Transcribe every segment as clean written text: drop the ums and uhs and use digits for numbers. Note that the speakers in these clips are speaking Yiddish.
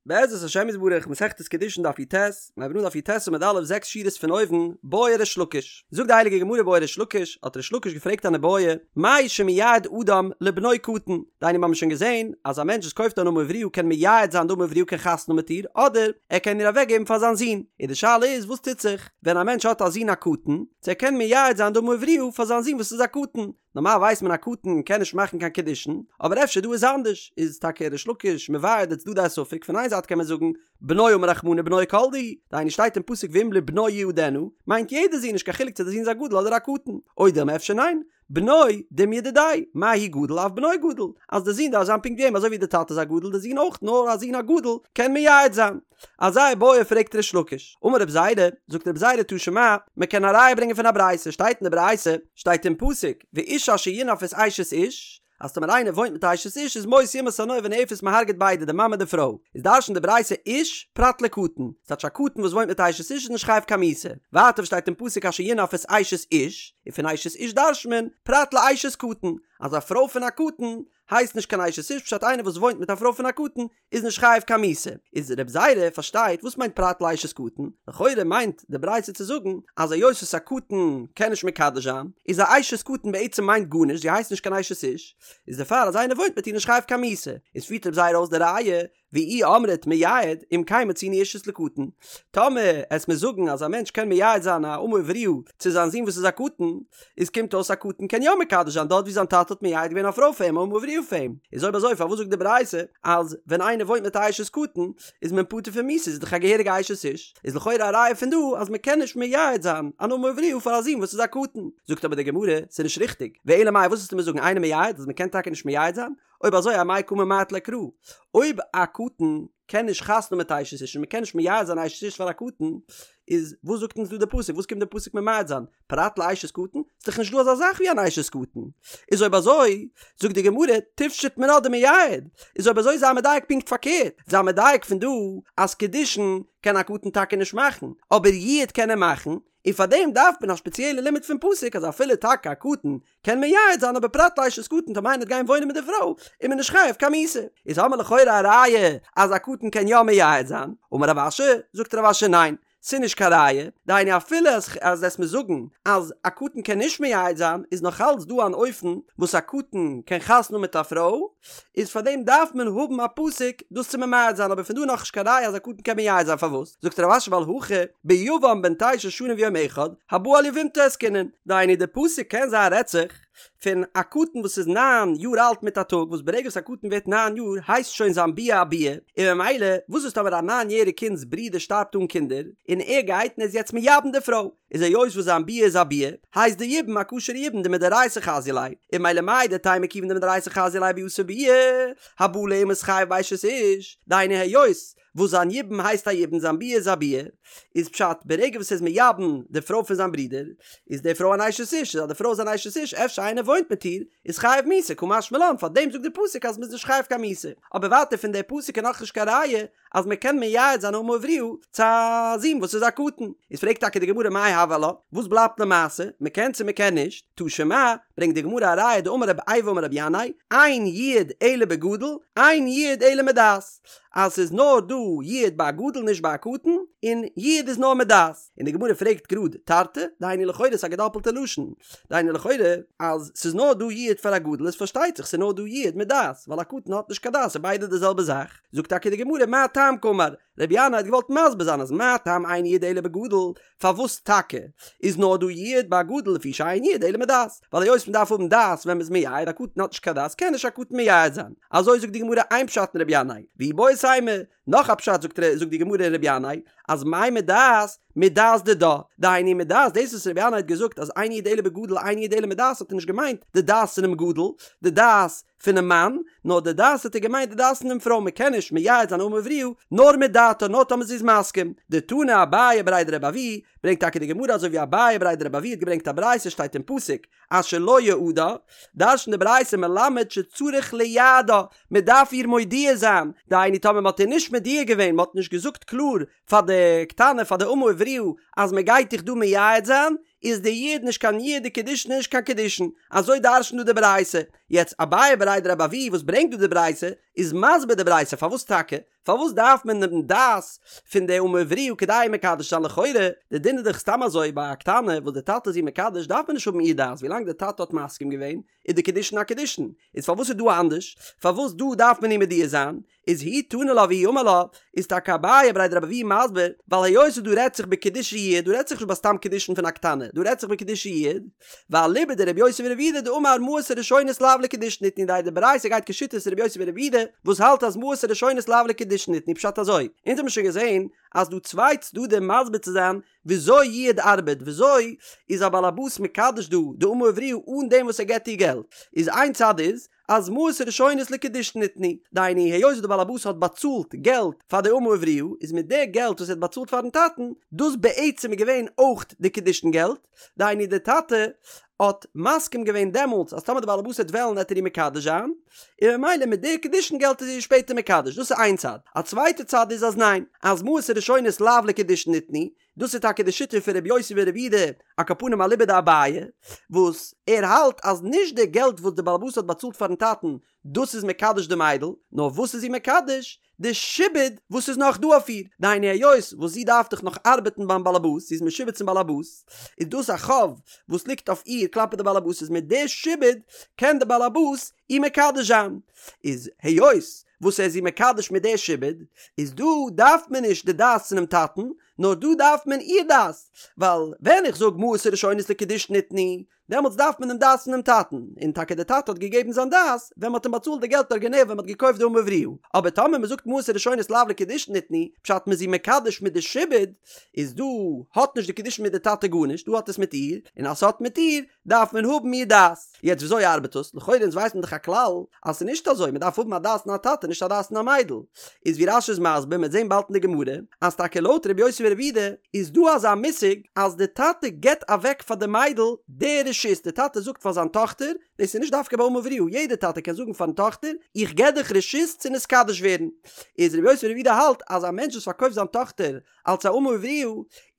בעזרת השם יתברך, מסכת קידושין דף י"ט, מיר הייבן אן דף י"ט עמוד א', זעקס שורות פון אויבן, בעי ריש לקיש. זאגט די הייליגע גמרא בעי ריש לקיש, האט ריש לקיש געפרעגט אן איבעיא, מהו שמייעד אדם לבנו קטן, דהיינו מיר האבן שוין געזען אז א מענטש וואס קויפט אן אמה עבריה קען מייעד זיין די אמה עבריה קען חתונה האבן מיט איר, אדער ער קען איר אוועקגעבן פאר זיין זון, און די שאלה איז וואס טוט זיך ווען א מענטש האט א זון א קטן, צו ער קען מייעד זיין די אמה עבריה פאר זיין זון וואס איז א קטן, נארמאל ווייסט מען א קטן קען נישט מאכן קיין קידושין, אבער אפשר דא איז אנדערש, איז טאקע ריש לקיש מבאר די צדדי הספק, פון איין זייט קען מען זאגן בנו אמר רחמנא בנו כל דהו, דהיינו שטייט אין פסוק ואם לבנו יעדנה, מיינט יעדע זון נישט קיין חילוק צו די זון איז א גדול אדער א קטן, או דילמא אפשר ניין, בנו דומיא דידיה, מה הוא גדול אף בנו גדול, אז די זון דארף זיין פונקט ווי אים אזוי ווי די טאטע איז א גדול די זון אויך נאר א זון א גדול קען מייעד זיין. אזא איבעיא פרעגט ריש לקיש, אמר רב זירא, זאגט רב זירא תא שמע, מען קען א ראיה ברענגען פון א ברייתא, שטייט אין די ברייתא, שטייט אין פסוק, ואיש אשר ינאף את אשת איש, אז טאמער איינער וואוינט מיט א אשת איש איז מות יומת הנואף והנואפת מען הרג'ט ביידע די מאמע און די פרוי, איז דרש'נט די ברייתא איש פרט לקטן, ס'טייטש א קטן וואס וואוינט מיט א אשת איש איז נישט חייב קיין מיתה, ווייטער וואס שטייט אין פסוק אשר ינאף את אשת איש, און פון אשת איש דרש'נט מען פרט לאשת קטן, אז א פרוי פון א קטן הייסט נישט קיין אשת איש פשט איינער וואס וואוינט מיט א פרוי פון א קטן איז נישט חייב קיין מיתה. איז רב זירא פארשטייט וואס מיינט פרט לאשת קטן, לכאורה מיינט די ברייתא צו זאגן אז היות וואס א קטן קען נישט מקדש זיין, איז א אשת קטן בעצם מיינט גארנישט זי הייסט נישט קיין אשת איש, איז דערפאר אז איינער וואוינט מיט איר נישט חייב קיין מיתה. איז פירט רב זירא אויס די ראיה ואי אמרת מייעד אם כן מצינו אישות לקטן, טאמער עסט מיר זאגן אז א מענטש קען מייעד זיין א אמה עבריה צו זיין זון וואס איז א קטן, איז קומט אויס א קטן קען יא מקדש זיין דארט ווי זיין טאטע האט מייעד געווען א פרוי פאר אים א אמה עבריה פאר אים, איז אויב אזוי פארוואס זאגט די ברייתא אז ווען איינער וואוינט מיט א אשת קטן איז מען פטור פון מיתה איז דאך א געהעריגע אשת איש, איז לכאורה א ראיה פון דא אז מען קען נישט מייעד זיין אן אמה עבריה פאר א זון וואס איז א קטן, זאגט אבער די גמרא ס'איז נישט ריכטיג, ואלא מאי וואס וועסטו מיר זאגן אינו מייעד אז מען קען טאקע נישט מייעד זיין? אויב אזוי אמאי קא ממעט ליה קרא? אויב א קטן קען נישט חתונה מיט אשת איש און מ'קען נישט מייעד זיין אשת איש פאר א קטן, איז וואס זאגט אונז דא די פסוק? וואס קומט די פסוק ממעט זיין? פרט לאשת קטן? ס'איז דאך נישט דא אזא זאך ווי אן אשת קטן. איז אויב אזוי, זאגט די גמרא, תפשוט מינה דמייעד. איז אויב אזוי זיי מדייק פונקט פארקערט. זיי מדייק פון דא אז קידושין קען א קטן טאקע נישט מאכן, אבער יעוד קען ער מאכן, און פאר דעם דארף מען א שפעציעלע לימוד פון פסוק אז אפילו טאקע א קטן קען מייעד זיין אבער פרט לאשת קטן טאמער איינער וועט גיין וואוינען מיט די פרוי איז מען נישט חייב קיין מיתה. איז האמער לכאורה א ראיה אז א קטן קען יא מייעד זיין. אמר רב אשי, זאגט רב אשי ניין, ס'איז נישט קיין ראיה, דהיינו אפילו אז אז וועסט מיר זאגן אז א קטן קען נישט מייעד זיין איז נאך אלץ דא אן אופן וואס א קטן קען חתונה האבן מיט א פרוי, איז פאר דעם דארף מען האבן א פסוק דאס צו ממעט זיין אבער פון דא נאך נישט קיין ראיה אז א קטן קען מייעד זיין פארוואס זאגט רב אשי ווייל הכא ביבם בן תשע שנים ויום אחד הבא על יבמתו עסקינן דהיינו די פסוק קען זיין רעדט זיך פון א קטן וואס איז ניין יאר אלט מיט א טאג וואס ברגע וואס א קטן ווערט ניין יאר הייסט שוין זיין ביאה א ביאה און ממילא וואס איז טאמער א ניין יעריג קינד'ס ברודער שטארבט אן קינדער און ער גייט און ער איז יעצט מייבם די פרוי איז היות וואס זיין ביאה איז א ביאה, הייסט די יבום א כשר'ע יבום דמדאורייתא חזיא ליה, און ממילא מהו דתימא כיוון דמדאורייתא חזיא ליה ביאתה ביאה, הבא עליה מתחייב באשת איש, דהיינו היות וואס זיין יבום הייסט א יבום זיין ביאה איז א ביאה, איז פשט ברגע וואס ער איז מייבם די פרוי פון זיין ברודער, איז די פרוי אן אשת איש, איז אז די פרוי איז אן אשת איש אפשר איינער וואוינט מיט איר, איז חייב מיתה, קא משמע לן, פארדעם זאגט די פסוק אז מ'איז נישט חייב קיין מיתה, אבער ווייטער פון די פסוק איז נאכנישט קיין ראיה אז מען קען מייעד זיין אמה עבריה צו א זון וואס איז א קטן, איז פרעגט טאקע די גמרא מאי הוי עלה, וואס בלייבט למעשה, מען קען צו מען קען נישט, תא שמע, ברענגט די גמרא א ראיה דאמר רב איבו אמר רבי ינאי, אין יעוד אלא בגדול, אין יעוד אלא מדעת, אז ס'איז נאר דא יעוד ביי א גדול נישט ביי א קטן, און יעוד איז נאר מדעת. און די גמרא פרעגט גראד תרתי, דהיינו לכאורה איז א געדאפלטע לשון, דהיינו לכאורה אז ס'איז נאר דא יעוד פאר א גדול איז פארשטייט זיך ס'איז נאר דא יעוד מדעת, ווייל א קטן האט נישט קיין דעת ס'איז ביידע די זעלבע זאך. זאגט טאקע די גמרא מה טעם קאמר, רבי ינאי האט געוואלט מסביר זיין אז מה טעם אין יעוד אלא בגדול, פארוואס טאקע איז נאר דא יעוד ביי א גדול לפי שאין יעוד אלא מדעת, ווייל היות מ'דארף האבן דעת ווען מ'איז מייעד, א קטן האט נישט קיין דעת קען נישט א קטן מייעד זיין, אזוי זאגט די גמרא איין פשט אין רבי ינאי, ואיבעית אימא, נאך א פשט זאגט זאגט די גמרא אין רבי ינאי אז מאי מדעת מדעת דידה, דהיינו מדעת דאס וואס רבי ינאי האט געזאגט אז אין יעוד אלא בגדול אין יעוד אלא מדעת האט ער נישט געמיינט די דעת פונעם גדול, די דעת פונעם מאן, נאר די דעת האט ער געמיינט די דעת פונעם פרוי, מען קען נישט מייעד זיין אמה עבריה נאר מדעתה נאר טאמער זי איז מסכים. דתני אביי בריה דרבי אבהו, ברענגט טאקע די גמרא אזוי ווי אביי בריה דרבי אבהו האט געברענגט א ברייתא שטייט אין פסוק אשר לא יעדה, דרש'נט די ברייתא מלמד שצריך לייעדה, מען דארף איר מודיע זיין, דהיינו טאמער מען האט איר נישט מודיע געווען, מען האט נישט געזאגט קלאר פאר די קטנה פאר די אמה עבריה אז מען גייט דיך דא מייעד זיין, איז די יעוד נישט קיין יעוד די קידושין איז נישט קיין קידושין, אזוי דרש'נט דא די ברייתא, יעצט אביי בריה דרבי אבהו וואס ברענגט דא די ברייתא איז מסביר די ברייתא פארוואס טאקע, פארוואס דארף מען דעם דעת פון די אמה עבריה כדי מקדש זיין לכאורה, די דין איז דאך סתם אזוי ביי א קטנה וואס די טאטע איז איר מקדש דארף מען נישט האבן איר דעת ווילאנג די טאטע האט מסכים געווען איז די קידושין א קידושין, איז פארוואס איז דא אנדערש פארוואס דא דארף מען איר מודיע זיין, איז הוא תני לה והוא אמר לה, איז טאקע אביי בריה דרבי אבהו מסביר, ווייל היות דא רעדט זיך בקידושי יעוד, דא רעדט זיך נישט ביי סתם קידושין פון א קטנה, דא רעדט זיך בקידושי יעוד, ואליבא דרבי יוסי ברבי יהודה דאמר מעות הראשונות לאו לקידושין ניתנו די די ברייתא גייט כשיטת רבי יוסי ברבי יהודה וואס האלט אז מעות הראשונות לאו לקידושין ניתנו פשט אזוי, אונז האבן שוין געזען אז דא צוויי צדדים מסביר צו זיין וויאזוי יעוד ארבעט, וויאזוי איז א בעל הבית מקדש דא די אמה עבריה אן דעם וואס ער געבט איר געלט, איז איין צד איז אז מעות הראשונות לקידושין ניתנו, דהיינו היות די בעל הבית האט באצאלט געלט פאר די אמה עבריה, איז מיט די געלט וואס ער האט באצאלט פארן טאטן, דאס בעצם איז געווען אויך די קידושין געלט, דהיינו די טאטע האט מסכים געווען דעמאלטס אז טאמער די בעל הבית וועט וועלן וועט ער איר מקדש זיין, און ממילא מיט די קידושין געלט איז ער איר שפעטער מקדש, דאס איז איין צד, א צווייטע צד איז אז ניין, אז מעות הראשונות לאו לקידושין ניתנו, דאס איז טאקע די שיטה פון רבי יוסי ברבי יהודה על כל פנים אליבא דאביי, וואס ער האלט אז נישט די געלט וואס די בעל הבית האט באצאלט פארן טאטן דאס איז מקדש די מיידל, נאר וואס איז זי מקדש? די שעבוד וואס איז נאך דא אויף איר, דהיינו היות וואס זי דארף דאך נאך ארבעטן ביים בעל הבית, זי איז משועבד צום בעל הבית, איז דאס א חוב וואס ליגט אויף איר כלפי די בעל הבית, איז מיט די שעבוד קען די בעל הבית איר מקדש זיין, איז היות וואס ער איז איר מקדש מיט די שעבוד, איז דא דארף מען נישט די דעת פונעם טאטן, נאר דא דארף מען איר דעת, ווייל ווען איך זאג מעות הראשונות לקידושין ניתנו, דעמאלטס דארף מען דעם דעת פונעם טאטן, און טאקע דער טאטע האט געגעבן זיין דעת ווען מ'האט אים באצאלט די געלט ארגינעל ווען מ'האט געקויפט די אמה עבריה, אבער טאמער מ'זאגט מעות הראשונות לאו לקידושין ניתנו, פשט מ'איז איר מקדש מיט די שעבוד, איז דא האט נישט די קידושין מיט די טאטע גארנישט, דא האט עס מיט איר, און אז ס'האט מיט איר, דארף מען האבן איר דעת. יעצט וויאזוי ארבעט עס? לכאורה אונז ווייסט מען דאך א כלל אז ס'איז נישט אזוי, מ'דארף האבן א דעת פון א טאטע נישט א דעת פון א מיידל. איז ווי רש"י איז מסביר, מ'וועט זען באלד אין די גמרא, אז טאקע לויט רבי יוסי ברבי יהודה איז דא אזא מושג אז די טאטע געבט אוועק פאר די מיידל די רשות, די טאטע זאגט פאר זיין טאכטער, דאס איז נישט דווקא ביי אמה עבריה, יעדע טאטע קען זאגן פארן טאכטער, איך געב דיך רשות צו נתקדש ווערן. איז רבי יוסי ברבי יהודה האלט אז א מענטש וואס פארקויפט זיין טאכטער אלס א אמה עבריה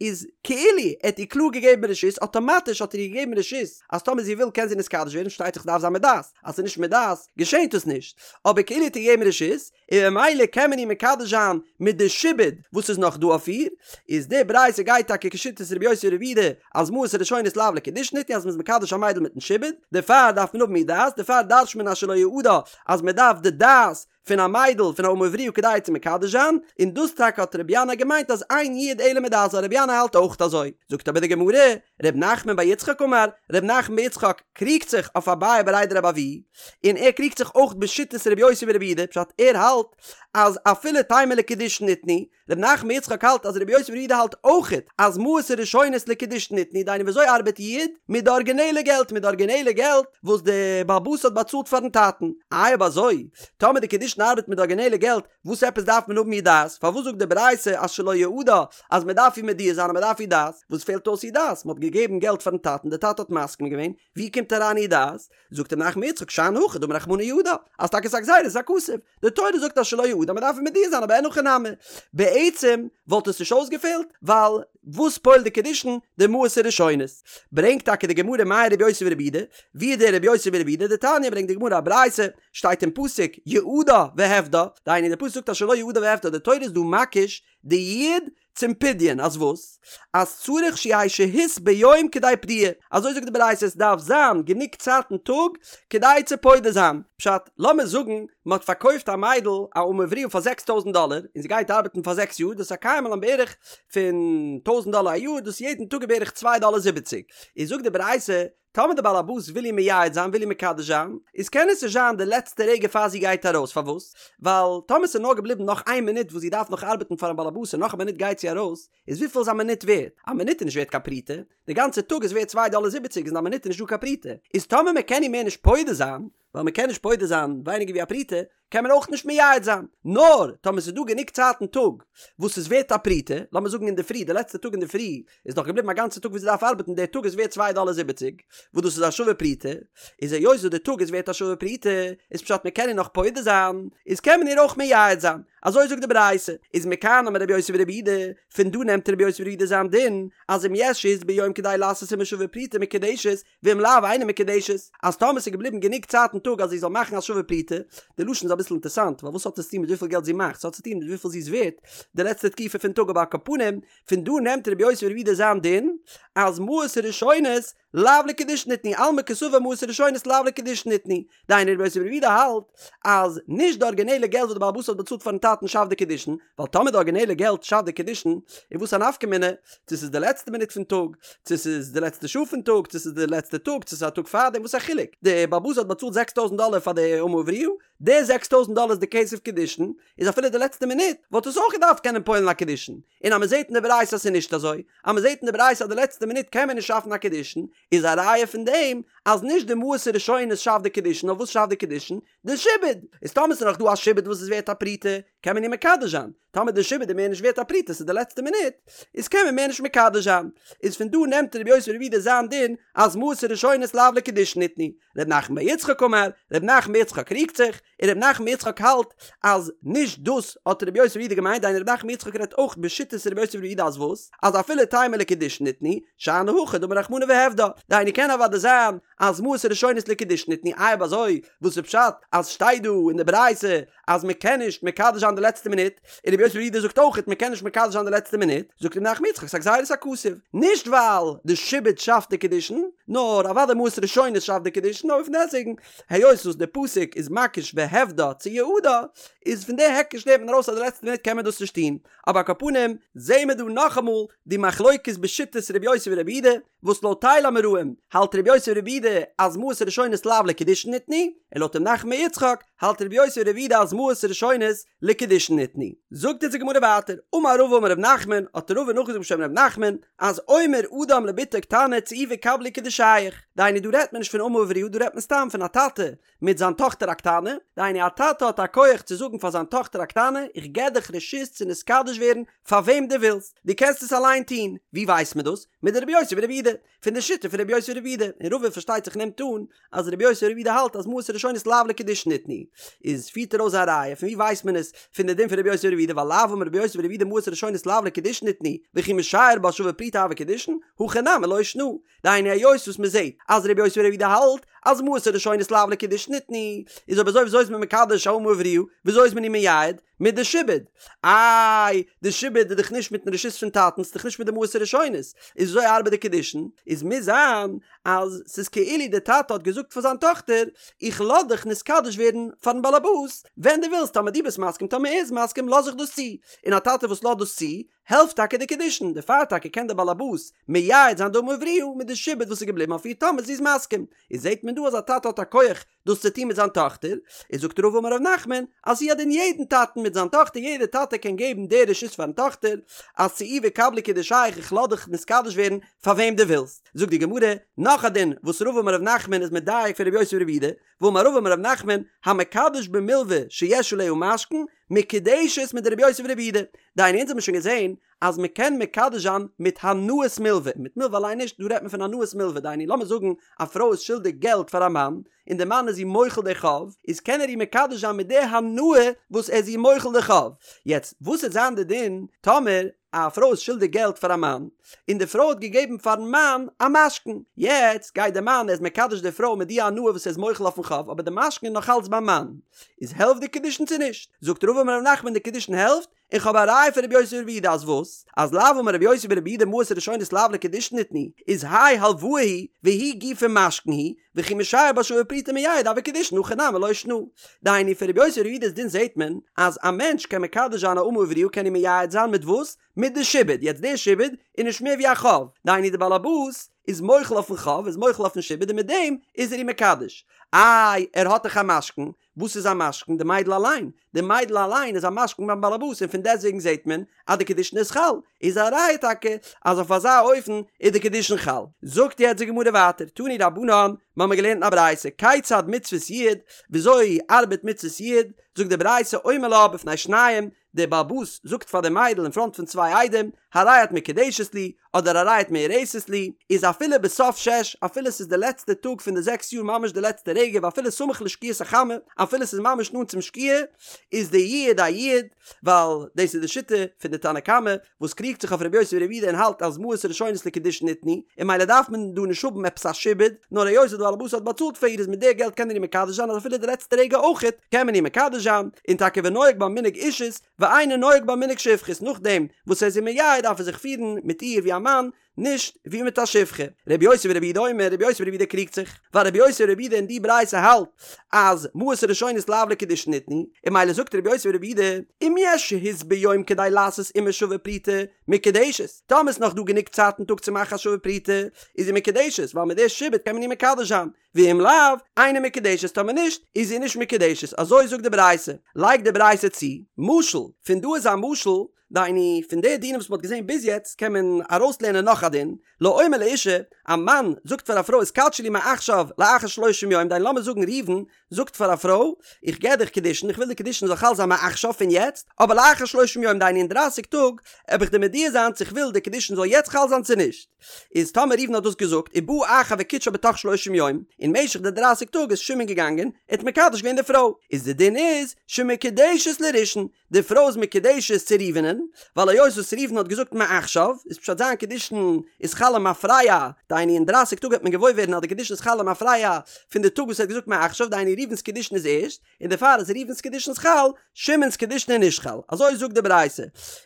איז כאילו ער האט איר קלאר געגעבן רשות, אטאמאטיש האט ער איר געגעבן רשות אז טאמער זי וויל קען זי נתקדש ווערן, פארשטייט זיך ס'דארף זיין מיט דעת, אז ס'איז נישט מיט דעת געשענט עס נישט, אבער כאילו האט איר געגעבן רשות, און ממילא קען מען איר מקדש זיין מיט די שעבוד וואס איז נאך דא אויף איר, איז די ברייתא גייט טאקע כשיטת רבי יוסי ברבי יהודה אז מעות הראשונות לאו לקידושין ניתנו אז מ'איז מקדש א מיידל מיטן שעבוד, דערפאר דארף מען האבן איר דעת, דערפאר דרש'ט מען אשר לא יעדה אז מ'דארף די דעת פון א מיידל פון א אמה עבריה כדי צו מקדש זיין, און דאס טאקע האט רבי ינאי געמיינט אז אין יעוד אלא מדעת ווייל רבי ינאי האלט אויך אזוי. זאגט אבער די גמרא, ר' נחמן בר יצחק אמר, ר' נחמן בר יצחק קריגט זיך אויף אביי בריה דרבי אבהו, און ער קריגט זיך אויך בשיטת רבי יוסי ברבי יהודה, פשט ער האלט אז אפילו תימא לקידושין ניתנו, ר' נחמן בר יצחק האלט אז רבי יוסי ברבי יהודה האלט אויכעט אז מעות הראשונות לקידושין ניתנו, דהיינו וויאזוי ארבעט יעוד? מיט די ארגינעלע געלט, מיט די ארגינעלע געלט וואס די בעל הבית האט באצאלט פארן טאטן. איי אויב אזוי, טאמער די קידושין ארבעט מיט די ארגינעלע געלט, וואס עפעס דארף מען האבן איר דעת? פארוואס זאגט די ברייתא אז שלא יעדה אז מען דארף איר מודיע זיין אז מען דארף איר דעת? וואס פעלט אויס איר דעת? מען האט געגעבן געלט פארן טאטן, די טאטע האט מסכים געווען, ווי קומט אריין איר דעת? זאגט ר' נחמן בר יצחק שאני הכא דאמר רחמנא יעדה, אז טאקע ס'איז א גזירת הכתוב, די תורה זאגט אז שלא יעדה מען דארף איר מודיע זיין אבער אין הכי נמי, בעצם וואלט עס נישט אויסגעפעלט, ווייל וואס פועל'ט די קידושין? די מעות הראשונות. ברענגט טאקע די גמרא מאי רבי יוסי ברבי יהודה, ווי איז דער רבי יוסי ברבי יהודה? דתניא ברענגט די גמרא א ברייתא, שטייט אין פסוק יעדה והפדה, דהיינו די פסוק זאגט אז שלא יעדה והפדה, די תורה איז דא מקיש די יעוד צום פדיון אז וואס? אז צריך שיהא שהות ביום כדי פדיה, אזוי זאגט די ברייתא עס דארף זיין גענוג צייט אין טאג כדי צו פודה זיין, פשט, לאמיר זאגן מען האט פארקויפט א מיידל א אמה עבריה פאר זעקס טויזנט דאלער און זי גייט ארבעטן פאר זעקס יאר דאס איז א קיימא לן בערך פון טויזנט דאלער א יאר דאס איז יעדן טאג בערך צוויי דאלער זיבעציג, איז זאגט די ברייתא טאמער די בעל הבית וויל איר מייעד זיין וויל איר מקדש זיין, איז קען עס נישט זיין די לעצטע רגע פאר זי גייט ארויס, פארוואס? ווייל טאמער ס'איז נאר געבליבן נאך איין מינוט וואס זי דארף נאך ארבעטן פארן בעל הבית און נאך א מינוט גייט זי ארויס, איז וויפיל איז א מינוט ווערט? א מינוט איז נישט ווערט קיין פרוטה, די גאנצע טאג איז ווערט צוויי דאלער זיבעציג איז אין א מינוט איז נישט דא קיין פרוטה, איז טאמער מען קען איר מער נישט פודה זיין, ווייל מען קען נישט פודה זיין ווייניגער ווי א פרוטה, קען מען אויך נישט מייעד זיין, נאר טאמער ס'איז דא גענוג צייט אין טאג וואס איז ווערט א פרוטה, לאמיר זאגן אינדערפרי, די לעצטע טאג אינדערפרי איז נאך געבליבן א גאנצע טאג וואס זי דארף ארבעטן, דער טאג איז ווערט צוויי דאלער זיבעציג, וואס דאס איז א שווה פרוטה, איז היות וואס די טאג איז ווערט א שווה פרוטה, איז פשט מען קען איר נאך פודה זיין, איז קען מען איר אויך מייעד זיין, אזוי זאגט די ברייתא, איז מכאן אמר רבי יוסי ברבי יהודה, פון דא נעמט רבי יוסי ברבי יהודה זיין דין, אז אם יש שהות ביום כדי לעשות עמה שווה פרוטה מקודשת, ואם לאו אינה מקודשת, אז טאמער ס'איז געבליבן גענוג צייט אין טאג אז זי זאל מאכן א שווה פרוטה, די לשון איז אביסל אינטערסאנט, ווייל וואס האט עס צוטון מיט וויפיל געלט זי מאכט, ס'האט צוטון מיט וויפיל זי איז ווערט די לעצטע תקופה פון טאג אבער על כל פנים, פון דא נעמט רבי יוסי ברבי יהודה זיין דין, אז מעות הראשונות לאו לקידושין ניתנו, אלמא קסבר מעות הראשונות לאו לקידושין ניתנו, דהיינו רבי יוסי ברבי יהודה האלט אז נישט די ארגינעלע געלט וואס די בעל הבית האט באצאלט פארן טאטן שאפט די קידושין, ווייל טאמער די ארגינעלע געלט שאפט די קידושין, איז וואס א נפקא מינה צו ס'איז די לעצטע מינוט פון טאג, צו ס'איז די לעצטע שעה פון טאג, צו ס'איז די לעצטע טאג, צו ס'איז א טאג פארדעם, וואס א חילוק? די בעל הבית האט באצאלט זעקס טויזנט דאלער פאר די אמה עבריה, די זעקס טויזנט דאלער איז די כסף קידושין, איז אפילו די לעצטע מינוט וואלט עס אויך געדארפט קענען פועל'ן א קידושין, און אז מ'זעט אין די ברייתא אז ס'איז נישט אזוי, אז מ'זעט אין די ברייתא אז די לעצטע מינוט קען מען נישט שאפן א קידושין, איז א ראיה פון דעם אז נישט די מעות הראשונות שאפט די קידושין נאר וואס שאפט די קידושין? די שעבוד! איז טאמער ס'איז נאך דא א שעבוד וואס איז ווערט א פרוטה קען מען איר מקדש זיין, טאמער די שעבוד איז מער נישט ווערט א פרוטה ס'איז די לעצטע מינוט איז קען מען מער נישט מקדש זיין, איז פון דא נעמט רבי יוסי ברבי יהודה זיין דין אז מעות הראשונות לאו לקידושין ניתנו, ר' נחמן בר יצחק אמר, ר' נחמן בר יצחק קריגט זיך, און ר' נחמן בר יצחק האלט אז נישט דאס האט רבי יוסי ברבי יהודה געמיינט, דהיינו ר' נחמן בר יצחק רעדט אויך בשיטת רבי יוסי ברבי יהודה אז וואס? אז אפילו תימא לקידושין ניתנו, שאני הכא דאמר רחמנא והפדה, דהיינו קען אוודאי זיין אז מעות הראשונות לקידושין ניתנו, איי אויב אזוי וואס איז פשט אז שטייט דא אין די ברייתא אז מען קען נישט מקדש זיין די לעצטע מינוט, און רבי יוסי ברבי יהודה זאגט אויך מען קען נישט מקדש זיין די לעצטע מינוט, זאגט רב נחמן בר יצחק ס'איז א גזירת הכתוב, נישט ווייל די שעבוד שאפט די קידושין, נאר אוודאי מעות ראשונות שאפט די קידושין, אבער פון דעסטוועגן היות וואס די פסוק איז מקיש והפדה צו יעדה, איז פון די היקש לערנט מען ארויס אז די לעצטע מינוט קען מען דאס נישט טון, אבער על כל פנים זעהן מיר דא נאכאמאל די מחלוקת בשיטת רבי יוסי ברבי יהודה, וואס לויט טייל אמוראים האלט רבי יוסי ברבי יהודה אז מעות הראשונות לאו לקידושין ניתנו, און לויט ר' נחמן בר יצחק האלט רבי יוסי ברבי יהודה אז מעות הראשונות לקידושין ניתנו. זאגט אונז די גמרא ווייטער, אמר רבא אמר ר' נחמן, האט רבא נאכגעזאגט בשם ר' נחמן, אז אומר אדם לבתו קטנה צאי וקבלי קידושייך, דהיינו דא רעדט מען נישט פון אמה עבריה דא רעדט מען סתם פון א טאטע מיט זיין טאכטער א קטנה, דהיינו א טאטע האט א כח צו זאגן פאר זיין טאכטער א קטנה, איך געב דיך רשות צו נתקדש ווערן פאר וועם דו ווילסט, דו קענסט עס אליין טון, ווי ווייסט מען דאס? מדרבי יוסי ברבי יהודה, פון די שיטה פון רבי יוסי ברבי יהודה, און רבא פארשטייט זיך נעמט אן אז רבי יוסי ברבי יהודה האלט אז מעות הראשונות לאו לקידושין ניתנו, איז פירט ער אויס א ראיה, פון ווי ווייסט מען עס פון די דין פון רבי יוסי ברבי יהודה ווייל לאו אמר רבי יוסי ברבי יהודה מעות הראשונות לאו לקידושין ניתנו, וכי משייר בה שווה פרוטה הוה קידושין, הכא נמי לא שנא, דהיינו היות וואס מען זעט אז רבי יוסי ברבי יהודה האלט אז מעות הראשונות לאו לקידושין ניתנו, איז אויב אזוי וויאזוי איז מען מקדש א אמה עבריה, וויאזוי איז מען איר מייעד? מיט די שעבוד. איי, די שעבוד איז דאך נישט מיטן רשות פון טאטן, ס'איז דאך נישט מיט די מעות הראשונות, איז וויאזוי ארבעט די קידושין? איז מוז זיין אז ס'איז כאילו די טאטע האט געזאגט פאר זיין טאכטער, איך לאז דיך נתקדש ווערן פארן באלעבאס ווען דו ווילסט, טאמער דו ביסט מסכים טאמער ער איז מסכים לאז איך דאס צו, און א טאטע וואס לאזט דאס צו, העלפט טאקע די קידושין, דערפאר טאקע קען דער באלעבאס מייעד זיין די אמה עבריה מיט די שעבוד וואס איז געבליבן אויף איר טאמער זי איז מסכים, איז זעט מען דא אז א טאטע האט א כח דאס צו טון מיט זיין טאכטער, איז זאגט רבא אמר ר' נחמן אז הוא הדין יעדן טאטן מיט זיין טאכטער יעדער טאטע קען געבן די רשות פארן טאכטער אז צאי וקבלי קידושייך איך לאז דיך נתקדש ווערן פאר וועם דו ווילסט, זאגט די גמרא נאך א דין וואס רבא אמר ר' נחמן איז מדייק פון ר' יוסי ברבי יהודה, ואמר רבא אמר ר' נחמן המקדש במלוה שיש עליה משכון מקודשת מדרבי יוסי ברבי יהודה, דהיינו אונז האבן שוין געזען אז מען קען מקדש זיין מיט הנאת מלוה, מיט מלוה אליין נישט, דא רעדט מען פון הנאת מלוה, דהיינו לאמיר זאגן א פרוי איז שולדיג געלט פאר א מאן, און די מאן איז איר מוחל די חוב, איז קען ער איר מקדש זיין מיט די הנאה וואס ער איז איר מוחל די חוב. יעצט וואס וועט זיין די דין טאמער א פרוי איז שולדיג געלט פאר א מאן, און די פרוי האט געגעבן פארן מאן א משכון, יעצט גייט די מאן ער איז מקדש די פרוי מיט די הנאה וואס ער איז מוחל אויפן חוב, אבער די משכון איז נאך אלץ ביים מאן, איז העלפט די קידושין צו נישט? זאגט רבא אמר ר' נחמן די קידושין העלפט, און כ'האב א ראיה פון רבי יוסי ברבי יהודה אז וואס? אז לאו אמר רבי יוסי ברבי יהודה מעות הראשונות לאו לקידושין ניתנו, איז האי הלוואה היא והוא גופא משכון הוא, וכי משייר בה שווה פרוטה מייעד הוה קידושין הכא נמי לא שנא. דהיינו פון רבי יוסי ברבי יהודה'ס דין זעהט מען אז א מענטש קען מקדש זיין א אמה עבריה קען ער מייעד זיין מיט וואס? מיט די שעבוד, יעצט די שעבוד איז נישט מער ווי א חוב, דהיינו די בעל הבית. איז מוחל אויפן חוב, איז מוחל אויפן שעבוד און מיט דעם איז ער איר מקדש. איי, ער האט דאך א משכון, וואס איז א משכון? די מיידל אליין. די מיידל אליין איז א משכון ביים באלעבאס און פון דעסטוועגן זעט מען אז די קידושין איז חל. איז א ראיה טאקע אז אויף אזא אופן איז די קידושין חל. זאגט יעצט די גמרא ווייטער, תנו רבנן, מ'האמיר געלערנט אין א ברייתא, כיצד מצוות יעוד, וויאזוי ארבעט מצוות יעוד, זאגט די ברייתא, אומר לה בפני שניים, דער באלעבאס זאגט פאר די מיידל אין פראנט פון צוויי עדים, הרי את מקודשת לי, אדער הרי את מאורסת לי, איז אפילו בסוף שש, אפילו ס'איז די לעצטע טאג פון די זעקס יאר ממש די לעצטע רגע ואפילו סמוך לשקיעת החמה, אפילו ס'איז ממש נאנט צום שקיעה, איז די יעוד א יעוד, ווייל דאס איז די שיטה פון די תנא קמא, וואס קריגט זיך אויף רבי יוסי ברבי יהודה און האלט אז מעות הראשונות לקידושין ניתנו, און ממילא דארף מען דא נישט האבן עפעס א שעבוד, נאר היות די בעל הבית האט באצאלט פאר איר איז מיט די געלט קען ער איר מקדש זיין אז אפילו די לעצטע רגע אויכעט קען מען איר מקדש זיין, און טאקע ונוהג בה מנהג אישות ואינו נוהג בה מנהג שפחות נאכדעם וואס ער איז איר מייעד דארף ער זיך פירן מיט איר ווי א מאן, נישט ווי מיט א שפחה. רבי יוסי ברבי יהודה אומר, רבי יוסי ברבי יהודה קריגט זיך, ווייל רבי יוסי ברבי יהודה אין די ברייתא האלט אז מעות הראשונות לאו לקידושין ניתנו, און ממילא זאגט רבי יוסי ברבי יהודה, אם יש שהות ביום כדי לעשות עמה שווה פרוטה, מקודשת, טאמער איז נאך דא גענוג צייט אין טאג צו מאכן א שווה פרוטה, איז זי מקודשת, ווייל מיט די שעבוד קען מען איר מקדש זיין, ואם לאו, אינה מקודשת, טאמער נישט, איז זי נישט מקודשת, אזוי זאגט די ברייתא, לייגט די ברייתא צו, משל, פון דא איז א משל, דהיינו, פון די דינים וואס מען האט געזען ביז יעצט קען מען ארויסלערנען נאך א דין, לאומר לאשה, א מאן זאגט פאר א פרוי התקדשי לי מעכשיו לאחר שלושים יום, דהיינו לאמיר זאגן ראובן זאגט פאר א פרוי, איך געב דיך קידושין, איך וויל די קידושין זאל חל זיין מעכשיו פון יעצט, אבער לאחר שלושים יום דהיינו אין דרייסיג טאג, וועל איך דיר מודיע זיין צו איך וויל די קידושין זאל יעצט חל זיין צו נישט. איז טאמער ראובן האט דאס געזאגט, ובא אחר וקידשה בתוך שלושים יום, אין משך די דרייסיג טאג איז שמעון געגאנגען, ער האט מקדש געווען די פרוי, איז די דין איז, שמקודשת לראשון, די פרוי איז מקודשת צו ראובנ'ען, ווייל היות וואס ראובן האט געזאגט מעכשיו, איז פשט זיין קידושין איז חל למפרע, דהיינו אין דרייסיג טאג וועט מען געוואויר ווערן אז די קידושין איז חל למפרע פון די טאג וואס ער האט געזאגט מעכשיו, דהיינו ראובן'ס קידושין איז ערשט, און דערפאר איז ראובן'ס קידושין חל, שמעון'ס קידושין איז נישט חל. אזוי זאגט די ברייתא.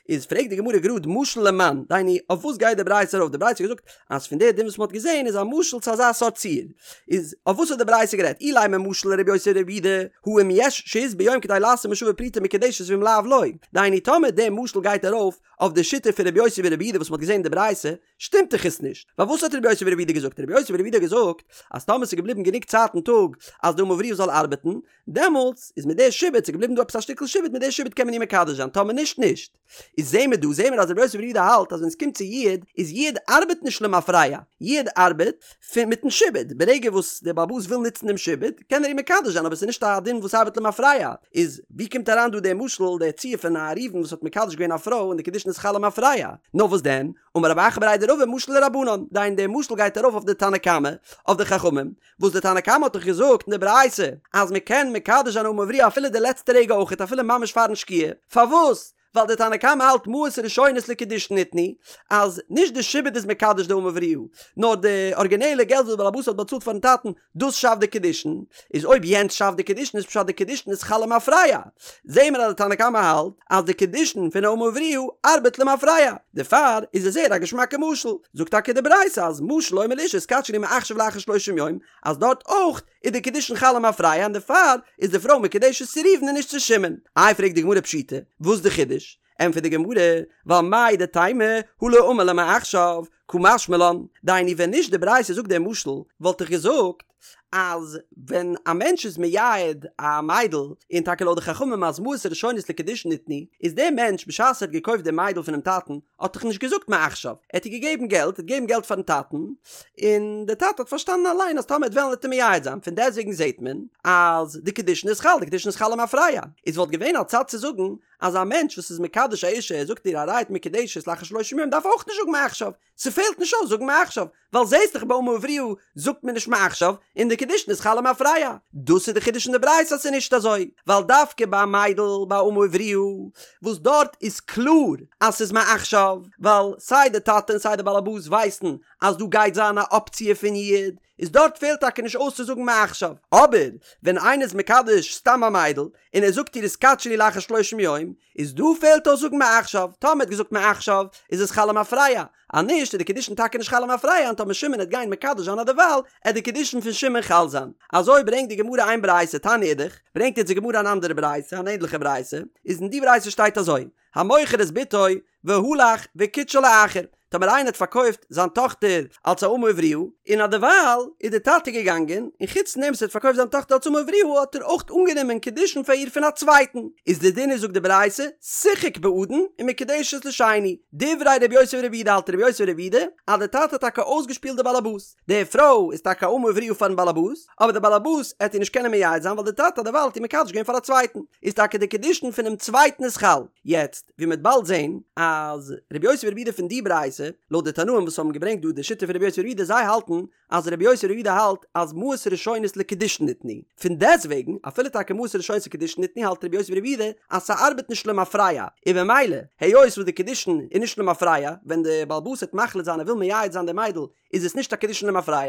איז פרעגט די גמרא גראד משל למאן, דהיינו אויף וואס גייט די ברייתא ארויף? די ברייתא האט געזאגט אז פון די דין וואס מען האט געזען איז א משל צו אזא סארט ציור. איז אויף וואס האט די ברייתא גערעדט? אילימא משל לרבי יוסי ברבי יהודה, הא אם יש שהות ביום כדי לעשות עמה שווה פרוטה מקודשת ואם לאו לא. דהיינו טאמער די משל גייט ארויף אויף די שיטה פון רבי יוסי ברבי יהודה וואס מען האט געזען אין די ברייתא, שטימט דאך עס נישט. ווייל וואס האט רבי יוסי ברבי יהודה געזאגט? רבי יוסי ברבי יהודה האט געזאגט אז טאמער ס'איז געבליבן גענוג צייט אין טאג אז די אמה עבריה זאל ארבעטן, דעמאלטס איז מיט די שעבוד, ס'איז געבליבן דא עפעס א שטיקל שעבוד, מיט די שעבוד קען מען איר מקדש זיין, טאמער נישט נישט. איז זעהן מיר דא, זעהן מיר אז רבי יוסי ברבי יהודה האלט אז ווען עס קומט צו יעוד, איז יעוד ארבעט נישט למפרע, יעוד ארבעט פון מיטן שעבוד, ברגע וואס דער בעל הבית וויל נוצן דעם שעבוד, קען ער איר מקדש זיין, אבער עס איז נישט א דין וואס ארבעט למפרע. איז ווי קומט אריין דא דער משל, דער ציור פון א ראובן וואס האט מקדש געווען א פרוי און די קידושין איז חל למפרע? נאר וואס דען? אמר רב אחא בריה דרבא משל לרבנן, דהיינו דער משל גייט ארויף אויף די תנא קמא, אויף די חכמים, וואס די תנא קמא האט דאך געזאגט אין די ברייתא אז מען קען מקדש זיין אמה עבריה אפילו די לעצטע רגע אויכעט אפילו ממש פארן שקיעה, פארוואס? ווייל די תנא קמא האלט מעות ראשונות לקידושין ניתנו, אז נישט די שעבוד איז מקדש די אמה עבריה, נאר די ארגינעלע געלט וואס די בעל הבית האט באצאלט פארן טאטן, דאס שאפט די קידושין, איז אויב יענץ שאפט די קידושין איז פשט די קידושין איז חל למפרע, זעהן מיר אז די תנא קמא האלט אז די קידושין פון אמה עבריה ארבעט למפרע, דערפאר איז עס זייער א געשמאקע משל, זאגט טאקע די ברייתא אז משל לאומר לאשה התקדשי לי מעכשיו לאחר שלושים יום, אז דארט אויך איז די קידושין חל למפרע און דערפאר איז די פרוי מקודשת צו ראובן און נישט צו שמעון. איי פרעגט די גמרא פשיטא, וואס די חידוש? ענטפערט די גמרא, ווייל מהו דתימא הא לא אמר לה מעכשיו, קא משמע לן, דהיינו ווען נישט די ברייתא זאגט דעם משל, וואלט איך געזאגט אז ווען א מענטש איז מייעד א מיידל, און טאקע לויט די חכמים אז מעות ראשונות לקידושין ניתנו, איז דער מענטש בשעת ער האט געקויפט די מיידל פונעם טאטן, האט דאך נישט געזאגט מעכשיו, ער האט איר געגעבן געלט, ער האט געגעבן געלט פארן טאטן, און דער טאטע האט פארשטאנען אליין אז טאמער ער וועט וועלן וועט ער מייעד זיין, פון דעסטוועגן זעט מען אז די קידושין איז חל, די קידושין איז חל למפרע, איז וואלט געווען א צד צו זאגן אז א מענטש וואס איז מקדש א אישה ער זאגט איר הרי את מקודשת לאחר שלושים יום דארף אויך נישט זאגן מעכשיו, ס'פעלט נישט אויס זאגן מעכשיו, ווייל זעסט דאך ביי אמה עבריה זאגט מען נישט מעכשיו און די קידושין איז חל למפרע. דאס איז די חידוש אין די ברייתא אז ס'איז נישט אזוי, ווייל דווקא ביי א מיידל ביי אמה עבריה וואס דארט איז קלאר אז ס'איז מעכשיו, ווייל סיי די טאטע און סיי די באלעבאס ווייסן אז דא גייט זיין א אפציע פון יעוד, איז דארט פעלט טאקע נישט אויס צו זאגן מעכשיו. אבער ווען איינער איז מקדש סתם א מיידל און ער זאגט איר התקדשי לי לאחר שלושים יום, איז דא פעלט אויס זאגן מעכשיו, טאמער ער האט געזאגט מעכשיו איז עס חל למפרע, אז נישט איז די קידושין טאקע נישט חל למפרע און טאמער שמעון העט גיין מקדש זיין אדערווייל עט די קידושין פון שמעון חל זיין. אזוי ברענגט די גמרא איין ברייתא, תניא אידך, ברענגט יעצט די גמרא אן אנדערע ברייתא, אן ענדליכע ברייתא, איז אין די ברייתא שטייט אזוי, המוכר את בתו והלך וקידשה לאחר. טאמער איינער האט פארקויפט זיין טאכטער אלס א אמה עבריה, און אדערווייל איז די טאטע געגאנגען, און חוץ פון דעם וואס ער האט פארקויפט זיין טאכטער אלס אמה עבריה האט ער אויך אנגענומען קידושין פאר איר פון א צווייטן, איז די דין איז זאגט די ברייתא, שיחק באדון ומקודשת לשני, דברי רבי יוסי ברבי יהודה האלט רבי יוסי ברבי יהודה אז די טאטע האט טאקע אויסגעשפילט די באלעבאס, די פרוי איז טאקע א אמה עבריה פארן באלעבאס, אבער די באלעבאס עט איר נישט קענען מייעד זיין ווייל די טאטע האט דערווייל האט איר מקדש געווען פאר א צווייטן, איז טאקע די קידושין פונעם צווייטן איז חל. יעצט, ווי מ'וועט באלד זען, אז רבי יוסי ברבי יהודה פון די ברייתא, לויט די תנאים וואס האבן געברענגט דא די שיטה פון רבי יוסי ברבי יהודה זיי האלטן אז רבי יוסי ברבי יהודה האלט אז מעות ראשונות לקידושין ניתנו, פון דעסטוועגן, אפילו טאקע מעות ראשונות לקידושין ניתנו האלט רבי יוסי ברבי יהודה אז ס'ארבעט נישט למפרע, און במילא, היות וואס די קידושין איז נישט למפרע, ווען די בעל הבית וועט מחליט זיין ער וויל מייעד זיין די מיידל איז עס נישט א קידושין למפרע,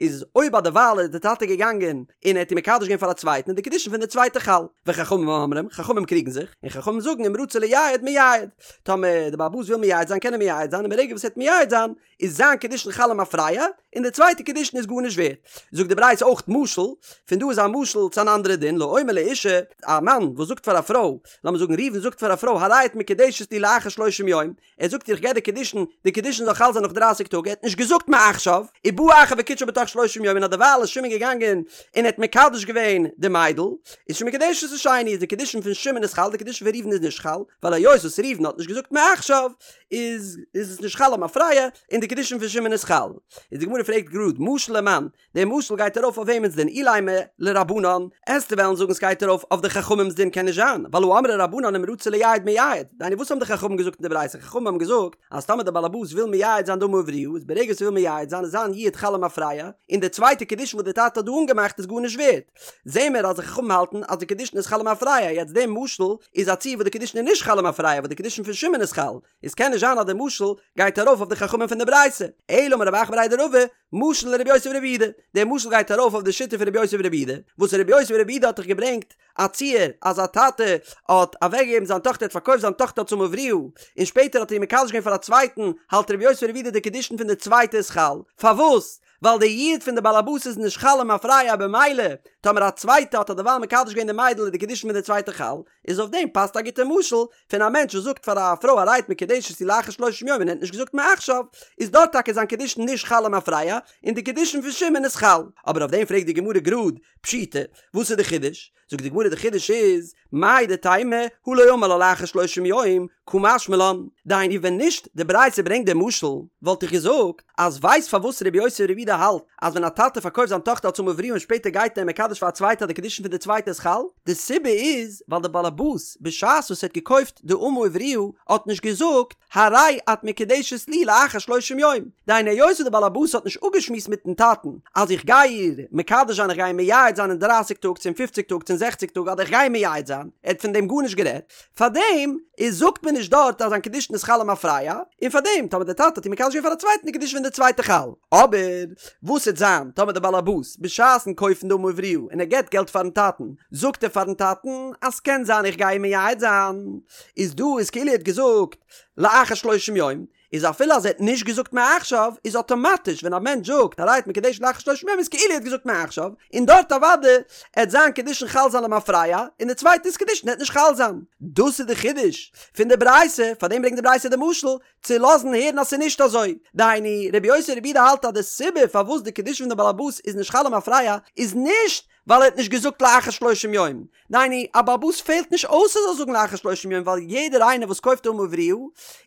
איז אויב אדערווייל איז די טאטע געגאנגען און ער האט איר מקדש געווען פאר א צווייטן איז די קידושין פון די צווייטע חל. וחכמים אומרים, חכמים קריגן זיך, און חכמים זאגן אם רצה לייעד מייעד, טאמער די בעל הבית וויל מייעד זיין קען ער מייעד זיין און ברגע וואס ער וועט מייעד זיין איז זיין קידושין חל למפרע און די צווייטע קידושין איז גארנישט ווערט. זאגט די ברייתא אויך משל, פון דא איז א משל צו אן אנדערע דין, לאומר לאשה, א מאן וואס זאגט פאר א פרוי, לאמיר זאגן ראובן זאגט פאר א פרוי הרי את מקודשת לי לאחר שלושים יום, ער זאגט איר איך געב דיר קידושין, די קידושין זאל חל זיין נאך דרייסיג טאג, ער האט נישט געזאגט מעכשיו, ובא אחר וקידשה בתוך שלושים יום און אדערווייל איז שמעון געגאנגען און ער האט מקדש געווען די מיידל, איז שמקודשת לשני, איז די קידושין פון שמעון איז חל, די קידושין פון ראובן איז נישט חל, ווייל היות וואס ראובן האט נישט געזאגט מעכשיו, איז איז עס נישט חל למפרע, און די קידושין פון שמעון איז חל. איז די גמרא פרעגט גראד, משל למאן, דער משל גייט ארויף אויף וועמענס דין? אילימא לרבנן, עסטו וועלן זאגן סגייט ארויף אויף די חכמים'ס דין קען נישט זיין, ווייל הא אמרי רבנן אם רצה לייעד מייעד, דהיינו וואס האבן די חכמים געזאגט אין די ברייתא, חכמים האבן געזאגט אז טאמער דער באלעבאס וויל מייעד זיין די אמה עבריה איז ברגע וואס ער וויל מייעד זיין איז זיין יעוד חל למפרע, און די צווייטע קידושין וואס די טאטע האט דא אנגעמאכט איז גארנישט ווערט. זעהן מיר אז די חכמים האלטן אז די קידושין איז חל למפרע, יעצט דער משל איז א ציור וואס די קידושין איז נישט חל למפרע וואס די קידושין פון שמעון איז חל, איז קען נישט זיין אז די משל גייט ארויף אויף די חכמים פון די ברייתא, אלא אמר רב אחא בריה דרבא, משל לרבי יוסי ברבי יהודה, דער משל גייט ארויף אויף די שיטה פון רבי יוסי ברבי יהודה, וואס רבי יוסי ברבי יהודה האט דאך געברענגט א ציור אז א טאטע האט אוועקגעגעבן זיין טאכטער האט פארקויפט זיין טאכטער אלס אמה עבריה, און שפעטער האט ער איר מקדש געווען פאר א צווייטן, האלט רבי יוסי ברבי יהודה די קידושין פון די צווייטע איז חל, פארוואס? ווייל די יעוד פון די בעל הבית איז נישט חל למפרע במילא טאמער א צווייטע האט אדערווייל מקדש געווען די מיידל איז די קידושין פון די צווייטע חל, איז אויף דעם פאסט א גוטע משל פון א מענטש וואס זאגט פאר א פרוי הרי את מקודשת לי לאחר שלושים יום און ער האט נישט געזאגט מעכשיו, איז דארט טאקע זיין קידושין נישט חל למפרע און די קידושין פון שמעון איז חל. אבער אויף דעם פרעגט די גמרא גראד, פשיטא, וואס איז די חידוש? זאגט די גמרא די חידוש איז, מהו דתימא הא לא אמר לה לאחר שלושים יום, קא משמע לן, דהיינו ווען נישט די ברייתא ברענגט די משל, וואלט איך געזאגט אז ווייסט פארוואס רבי יוסי ברבי יהודה האלט אז ווען א טאטע פארקויפט זיין טאכטער אלס אמה עבריה און שפעטער גייט ער מקדש פאר א צווייטע אז די קידושין פון די צווייטע איז חל, די סיבה איז ווייל די באלעבאס בשעת וואס ער האט געקויפט די אמה עבריה האט נישט געזאגט הרי את מקודשת לי לאחר שלושים יום, דהיינו היות וואס די באלעבאס האט נישט אפגעשמועסט מיטן טאטן אז איך גיי איר מקדש זיין איך גיי איר מייעד זיין אין דרייסיג טאג צו אין פופציג טאג צו אין זעכציג טאג אדער איך גיי איר מייעד זיין, ער האט פון דעם גארנישט גערעדט, פארדעם איז זאגט מען נישט דארט אז זיין קידושין איז חל למפרע, און פארדעם טאמער די טאטע האט איר מקדש געווען פאר א צווייטן איז קידושין פון די צווייטע חל. אבער וואס וועט זיין טאמער די באלעבאס בשעת'ן קויפן די אמה עבריה און ער געבט געלט פארן טאטן זאגט ער פארן טאטן אז ס'קען זיין איך גיי איר מייעד זיין, איז דא איז כאילו ער האט געזאגט לאחר שלושים יום, איז אפילו אז ער האט נישט געזאגט מעכשיו, איז אטאמאטיש ווען א מענטש זאגט הרי את מקודשת לאחר שלושים יום איז כאילו ער האט געזאגט מעכשיו, און דארט אוודאי עט זיין קידושין חל זיין למפרע, און די צווייטע'ס קידושין עט נישט חל זיין. דאס איז די חידוש פון די ברייתא, פארדעם ברענגט די ברייתא די משל, צו לאזן הערן אז ס'איז נישט אזוי. דהיינו, רבי יוסי ברבי יהודה האלט אז די סיבה פארוואס די קידושין פון די בעל הבית איז נישט חל למפרע איז נישט ווייל ער האט נישט געזאגט לאחר שלושים יום, דהיינו, א בעל הבית פעלט נישט אויס ער זאל זאגן לאחר שלושים יום ווייל יעדער איינער וואס קויפט אמה עבריה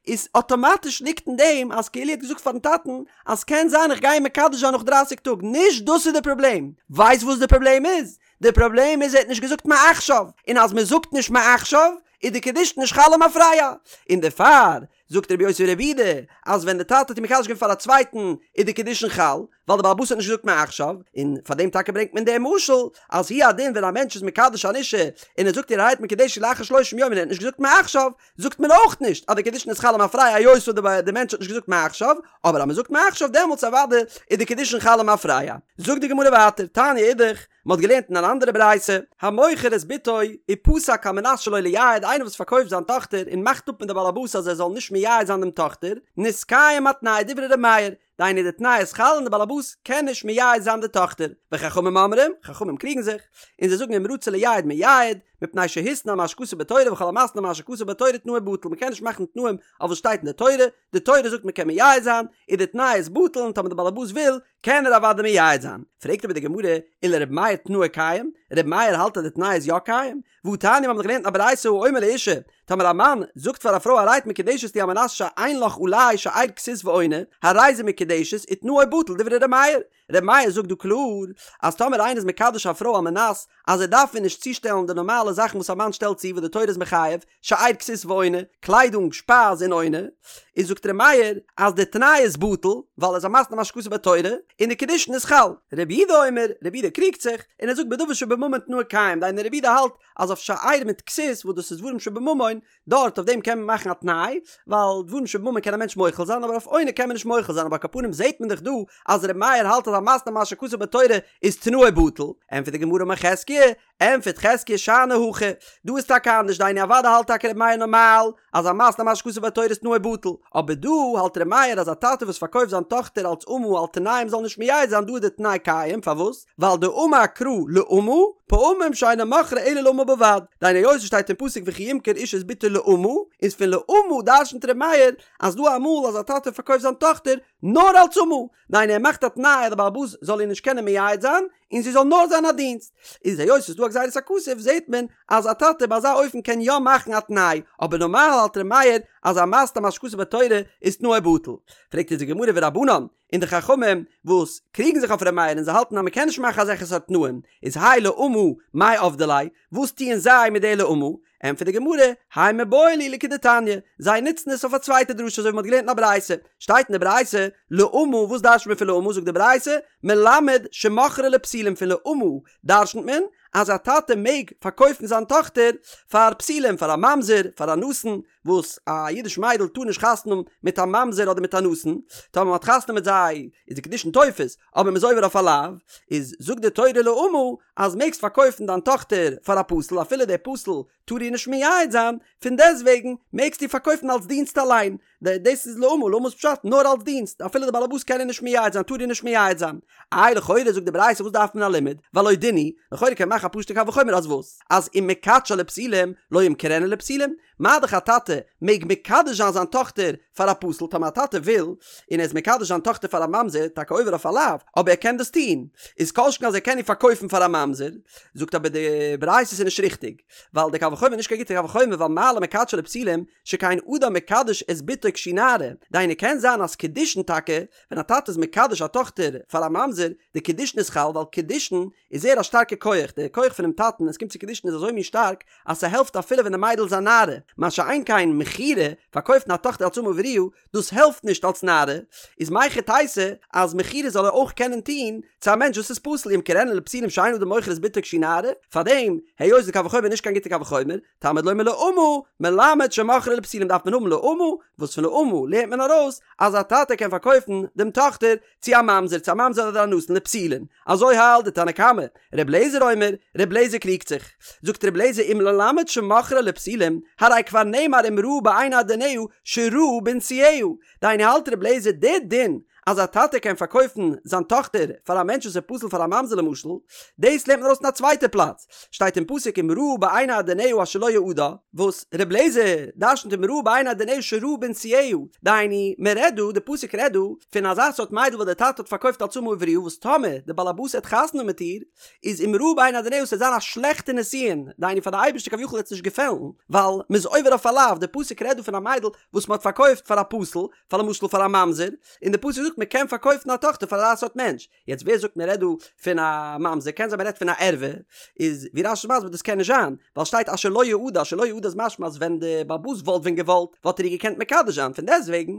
איז אטאמאטיש ליגט אין דעם אז כאילו ער האט געזאגט פארן טאטן אז קען זיין איך גיי אים מקדש זיין נאך דרייסיג טאג, נישט דאס איז די פראבלעם, ווייסט וואס די פראבלעם איז? די פראבלעם איז ער האט נישט געזאגט מעכשיו, און אז מען זאגט נישט מעכשיו איז די קידושין נישט חל למפרע, און דערפאר זאגט רבי יוסי ברבי יהודה אז ווען די טאטע האט איר מקדש געווען פאר א צווייטן איז די קידושין חל, ווייל די בעל הבית האט נישט געזאגט מעכשיו, און פאר דעם טאקע ברענגט מען דעם משל, אז הוא הדין ווען א מענטש איז מקדש אן אישה און ער זאגט איר הרי את מקודשת לאחר שלושים יום און ער האט נישט געזאגט מעכשיו, זאגט מען אויך נישט אז די קידושין איז חל למפרע היות וואס די מענטש האט נישט געזאגט מעכשיו, אבער אז מען זאגט מעכשיו דעמאלטס אוודאי איז די קידושין חל למפרע. זאגט די גמרא ווייטער, תניא אידך, מען האט געלערנט אין אן אנדערע ברייתא, המוכר את בתו ופסק על מנת שלא לייעד, איינער וואס פארקויפט זיין טאכטער און מאכט אפ מיט די בעל הבית אז ער זאל נישט מייעד זיין דעם טאכטער, נתקיים התנאי דברי ר' מאיר, דהיינו די תנאי איז חל און די באלעבאס קען נישט מייעד זיין די טאכטער, וחכמים אומרים, חכמים קריגן זיך, און זיי זאגן אם רצה לייעד מייעד, מפני שהתנה על מה שכתוב בתורה וכל המתנה על מה שכתוב בתורה תנאו בטל, מ'קען נישט מאכן תנאים אויף וואס שטייט אין די תורה, די תורה זאגט מ'קען מייעד זיין, און די תנאי איז בטל און טאמער די באלעבאס וויל, קען ער אוודאי מייעד זיין. פרעגט אבער די גמרא, ולר' מאיר תנאו קיים? ר' מאיר האלט אז די תנאי איז יא קיים? והתניא מיר האבן דאך געלערנט אין א ברייתא האומר לאשה, טאמער א מאן זאגט פאר א פרוי הרי את מקודשת לי על מנת שאין לך עלי שאר כסות ועונה, הרי זו מקודשת ותנאו בטל דברי ר' מאיר. ר' מאיר זאגט דא קלאר אז טאמער איינער איז מקדש א פרוי על מנת אז ער דארף איר נישט צושטעלן די נארמאלע זאכן וואס א מאן שטעלט צו וואס די תורה איז מחייב, שאר כסות ועונה, קליידונג, שפייז און עונה, איז זאגט ר' מאיר אז די תנאי איז בטל, ווייל ער איז א מתנה על מה שכתוב בתורה, און די קידושין איז חל. רבי יהודה אומר, רבי יהודה קריגט זיך, און ער זאגט בדבר שבממון תנאו קיים, דהיינו רבי יהודה האלט אז אויף שאר מיט כסות וואס דאס איז דברים שבממון, דארט אויף דעם קען מען מאכן א תנאי, ווייל דברים שבממון קען א מענטש מוחל זיין, אבער אויף עונה קען מען נישט מוחל זיין, אבער על כל פנים זעט מען דאך דא אז ר' מאיר האלט אז המתנה על מה שכתוב בתורה איז תנאו בטל, ענטפערט די גמרא אמר חזקיה, ענטפערט חזקיה שאני הכא, דא איז טאקע אנדערש דהיינו אוודאי האלט טאקע ר' מאיר נארמאל אז המתנה על מה שכתוב בתורה איז תנאו בטל, אבער דא האלט ר' מאיר אז א טאטע וואס פארקויפט זיין טאכטער אלץ אמה על תנאי מ'זאל נישט מייעד זיין דא איז די תנאי קיים, פארוואס? ווייל דאמר קרא לאמה, פעמים שאינו מוכרה אלא לאמה בלבד, דהיינו היות עס שטייט אין פסוק וכי ימכור איש את בתו לאמה, איז פון לאמה דרשנ'ט ר' מאיר אז דא אמאל אז א טאטע פארקויפט זיין טאכטער נאר אלץ אמה, דהיינו ער מאכט א תנאי אז די בעל הבית זאל איר נישט קענען מייעד זיין, און זי זאל נאר זיין א דינסט. איז היות ס'איז דא א גזירת הכתוב זעהט מען אז א טאטע ביי אזא אופן קען יא מאכן א תנאי, אבער נארמאל האלט ר' מאיר אז המתנה על מה שכתוב בתורה איז תנאו בטל. פרעגט אונז די גמרא ורבנן, און די חכמים וואס קריגן זיך אויף ר' מאיר און זיי האלטן אז מ'קען נישט מאכן אזעלכע סארט תנאים, איז האי לאמה מאי עבדי ליה, וואס טוען זיי מיט די לאמה? ענטפערט די גמרא, האי מיבעי להו לכדתניא, זיי נוצן עס אויף א צווייטע דרשה אזוי ווי מ'האט געלערנט אין א ברייתא, שטייט אין די ברייתא, לאמה, וואס דרש'נט מען פון לאמה, זאגט די ברייתא, מלמד שמוכרה לפסילים פון לאמה דרש'נט מען אז א טאטע מעג פארקויפן זיין טאכטער פאר פסילים, פאר א ממזר, פאר א נתין, וואס א אידיש מיידל טאר נישט חתונה האבן מיט א ממזר אדער מיט א נתין, טאמער מ'האט חתונה מיט זיי איז די קידושין תופס, אבער מ'איז עובר אויף א לאו, איז זאגט די תורה לאמה אז מעגסט פארקויפן דיין טאכטער פאר א פסול אפילו דער פסול טאר איר נישט מייעד זיין, פון דעסטוועגן מעגסטו איר פארקויפן אלס דינסט אליין, דאס איז לאמה, לאמה איז פשט נאר אלס דינסט, אפילו די בעלעבאס קען איר נישט מייעד זיין טאר איר נישט מייעד זיין. איי לכאורה זאגט די ברייתא וואס דארף מען א לימוד, והלא דין הוא, לכאורה קען מען מאכן א פשוט'ע קל וחומר אז וואס? אז אם מקדשה לפסילים לא ימכרנה לפסילים, מה דאך א טאטע מעג מקדש זיין זיין טאכטער פאר א פסול, טאמער א טאטע וויל און ער איז מקדש זיין טאכטער פאר א ממזר, טאקע עובר אויף א לאו, אבער ער קען דאס טון, איז כל שכן אז ער קען איר פארקויפן פאר א ממזר, זאגט אבער די ברייתא ס'איז נישט ריכטיג, ווייל די קל וחומר איז נישט קיין גוטע קל וחומר ווייל מה למקדשה לפסילים שכן אדם מקדש את בתו כשהיא נערה, דהיינו קען זיין אז קידושין טאקע ווען א טאטע איז מקדש א טאכטער פאר א ממזר, די קידושין איז חל ווייל קידושין איז זייער א שטארקע כח, די כח פונעם טאטן ווען עס קומט צו קידושין איז אזוי מין שטארק אז ס'העלפט אפילו ווען די מיידל איז א נערה, מה שאין כן מכירה, פארקויפן א טאכטער אלס אמה עבריה, דאס העלפט נישט אלס נערה, איז מהיכי תיתי אז מכירה זאל ער אויך קענען טון צו א מענטש וואס איז פסול ימכרנה לפסילים שאין אדם מוכר את בתו כשהיא נערה, פארדעם היות די קל וחומר איז נישט קיין גוטע קל וחומר, תלמוד לומר לאמה, מלמד שמוכרה לפסילים דארף מען האבן לאמה, וואס פון לאמה לערנט מען ארויס אז א טאטע קען פארקויפן דעם טאכטער צו א ממזר, צו א ממזר אדער א נתין לפסולין. אזוי האלט די תנא קמא. ר' לעזער אומר, ר' לעזער קריגט זיך. זאגט ר' לעזער אם ללמד שמוכרה לפסילים, הרי כבר נאמר אם רעה בעיני אדוניה שרעה בנישואיה. דהיינו האלט ר' לעזער די דין אז א טאטע קען פארקויפן זיין טאכטער פאר א מענטש וואס איז פסול פאר א ממזר למשל, דאס לערנט מען ארויס אין א צווייטע פלאץ, שטייט אין פסוק אם רעה בעיני אדוניה אשר לא יעדה, וואס ר' לעזער דרשנ'ט אם רעה בעיני אדוניה שרעה בנישואיה, דהיינו מען רעדט דא, די פסוק רעדט דא, פון אזא סארט מיידל וואס דער טאטע האט פארקויפט אלס אמה עבריה וואס טאמער די באלעבאס העט חתונה מיט איר, איז אם רעה בעיני אדוניה ס'וועט זיין א שלעכטע נישואין, דהיינו פאר די אייבערשטער כביכול וועט עס נישט געפעלן, ווייל מ'איז עובר אויף א לאו, די פסוק רעדט דא פון א מיידל וואס מ'האט פארקויפט פאר א פסול, פאר למשל פאר א ממזר, און די פסוק זאגט מ'קען פארקויפן א טאכטער פאר אזא סארט מענטש, יעצט ווער זאגט מ'רעדט דא פון א ממזר, קען זיין מ'רעדט פון א ערווה, איז ווי רש"י איז מסביר דאס קען נישט זיין, ווייל שטייט אשר לא יעדה, אשר לא יעדה איז משמע אז ווען די בעל הבית וואלט ווען געוואלט וואלט ער איר געקענט מקדש זיין, פון דעסטוועגן